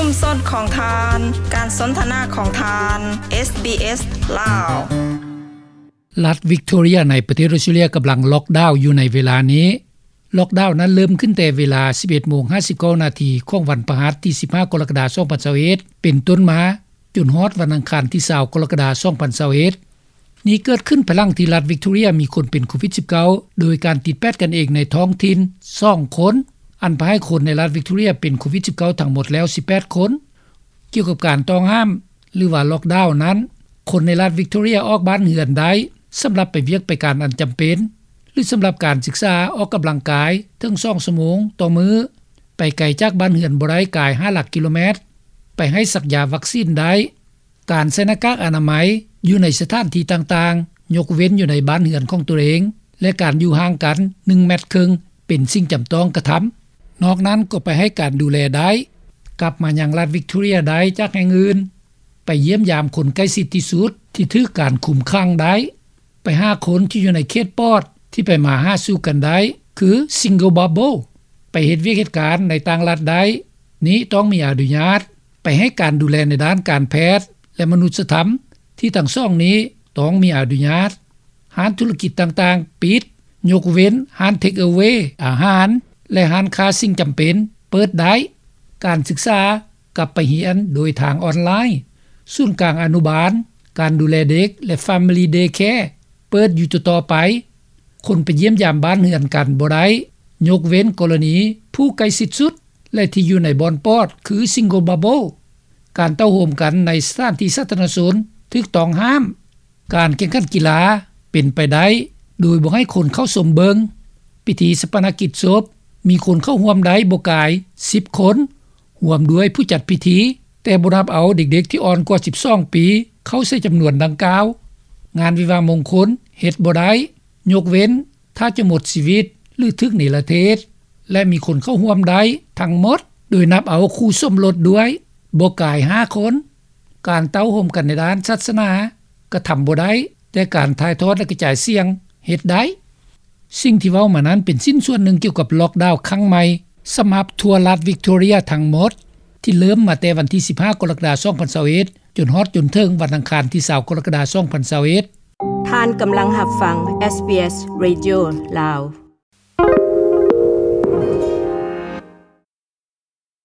ຊຸມຊົນຂອງທ່ານ, ການສົນທະນາຂອງທ່ານ, ເອສບີເອສ ລາວ. ລັດວິກໂທເຣຍໃນປະເທດອົດສະຕຣາເລຍກຳລັງລັອກດາວຢູ່ໃນເວລານີ້. ລັອກດາວນັ້ນເລີ່ມຂຶ້ນແຕ່ເວລາສິບເອັດໂມງຫ້າສິບເກົ້ານາທີຂອງວັນພະຫັດທີສິບຫ້າກໍລະກະດາສອງພັນຊາວເອັດເປັນຕົ້ນມາ ຈົນຮອດວັນອັງຄານທີຊາວກໍລະກະດາສອງພັນຊາວເອັດ. ນີ້ເກີດຂຶ້ນພາຍຫຼັງທີ່ລັດວິກໂທເຣຍມີຄົນເປັນໂຄວິດສິບເກົ້າ ໂດຍການຕິດແປດກັນເອງໃນທ້ອງຖິ່ນສອງຄົນ, ອັນພາໃຫ້ຄົນໃນລັດວິກໂທເຣຍເປັນໂຄວິດສິບເກົ້າທັງໝົດແລ້ວສິບແປດຄົນ. ກ່ຽວກັບການຕ້ອງຫ້າມ ຫຼືວ່າລັອກດາວນັ້ນ, ຄົນໃນລັດວິກໂທເຣຍອອກບ້ານເຮືອນໄດ້ສຳລັບໄປວຽກໄປການອັນຈຳເປັນ ຫຼືສຳລັບການສຶກສາ, ອອກກຳລັງກາຍເຖິງສອງຊົ່ວໂມງຕໍ່ມື້, ໄປໄກຈາກບ້ານເຮືອນບໍ່ໄດ້ກາຍຫ້າຫຼັກກິໂລແມັດ, ໄປໃຫ້ສັກຢາວັກຊີນໄດ້. ການໃສ່ໜ້າກາກອະນາໄມຢູ່ໃນສະຖານທີ່ຕ່າງໆ, ຍົກເວັ້ນຢູ່ໃນບ້ານເຮືອນຂອງຕົນເອງ ແລະ ການຢູ່ຫ່າງກັນໜຶ່ງແມັດເຄິ່ງ ເປັນສິ່ງຈຳຕ້ອງກະທຳ. ນອກນັ້ນກໍໄປໃຫ້ການດູແລໄດ້. ກັບມາຍັງລັດວິກໂທເຣຍໄດ້ຈາກແຫ່ງອື່ນ. ໄປຢ້ຽມຢາມຄົນໃກ້ຊິດທີ່ສຸດທີ່ຖືກການຄຸມຂັງໄດ້. ໄປຫາຄົນທີ່ຢູ່ໃນເຂດປອດທີ່ໄປມາຫາສູ່ກັນໄດ້ ຄື Single Bubble. ໄປເຮັດວຽກເຮັດການໃນຕ່າງລັດໄດ້. ນີ້ຕ້ອງມີອະນຸຍາດ. ໄປໃຫ້ການດູແລໃນດ້ານການແພດ ແລະ ມະນຸດສະທຳ ທີ່ທັງສອງນີ້ຕ້ອງມີອະນຸຍາດ. ຮ້ານທຸລະກິດຕ່າງໆປິດ, ຍົກເວັ້ນຮ້ານເທກເອເວ ອາຫານ ແລະ ຮ້ານຄ້າສິ່ງຈຳເປັນເປີດໄດ້. ການສຶກສາກັບໄປຮຽນໂດຍທາງອອນລາຍ. ສູນກາງອະນຸບານ, ການດູແລເດັກ ແລະ Family Daycare ເປີດຢູ່ຕໍ່ໆໄປ. ຄົນໄປຢ້ຽມຢາມບ້ານເຮືອນກັນບໍ່ໄດ້, ຍົກເວັ້ນກໍລະນີຜູ້ໃກ້ຊິດສຸດ ແລະ ທີ່ຢູ່ໃນບ່ອນປອດ ຄື Single Bubble. ການເຕົ້າໂຮມກັນໃນສະຖານທີ່ສາທາລະນະຊົນຖືກຕ້ອງຫ້າມ. ການແຂ່ງຂັນກິລາເປັນໄປໄດ້ໂດຍບໍ່ໃຫ້ຄົນເຂົ້າຊົມເບິ່ງ. ພິທີຊາປະນະກິດສົບມີຄົນເຂົ້າຮ່ວມໄດ້ບໍ່ກາຍສິບຄົນ, ຮ່ວມດ້ວຍຜູ້ຈັດພິທີ, ແຕ່ບໍ່ນັບເອົາເດັກໆທີ່ອ່ອນກວ່າສິບສອງປີເຂົ້າໃສ່ຈຳນວນດັ່ງກ່າວ. ງານວິວາມງຄົນເຮັດບໍ່ໄດ້, ຍົກເວັ້ນ ຖ້າຈະໝົດຊີວິດ ຫຼື ຖືກເນລະເທດ ແລະ ມີຄົນເຂົ້າຮ່ວມໄດ້ທັງໝົດ ໂດຍນັບເອົາຄູ່ສົມລົດດ້ວຍ ບໍ່ກາຍຫ້າຄົນ. ການເຕົ້າໂຮມກັນໃນດ້ານສາສະໜາກະທຳບໍ່ໄດ້, ແຕ່ການຖ່າຍທອດ ແລະ ກະຈາຍສຽງເຮັດໄດ້. ສິ່ງທີ່ເວົ້າມານັ້ນເປັນຊິ້ນສ່ວນໜຶ່ງກ່ຽວກັບລັອກດາວຄັ້ງໃໝ່ ສຳລັບທົ່ວລັດວິກໂທເຣຍທັງໝົດ ທີ່ເລີ່ມມາແຕ່ວັນທີສິບຫ້າກໍລະກະດາສອງພັນຊາວເອັດ ຈົນຮອດຈົນເຖິງວັນອັງຄານທີຊາວກໍລະກະດາສອງພັນຊາວເອັດ. ທ່ານກຳລັງຮັບຟັງ ເອສບີເອສ Radio ລາວ.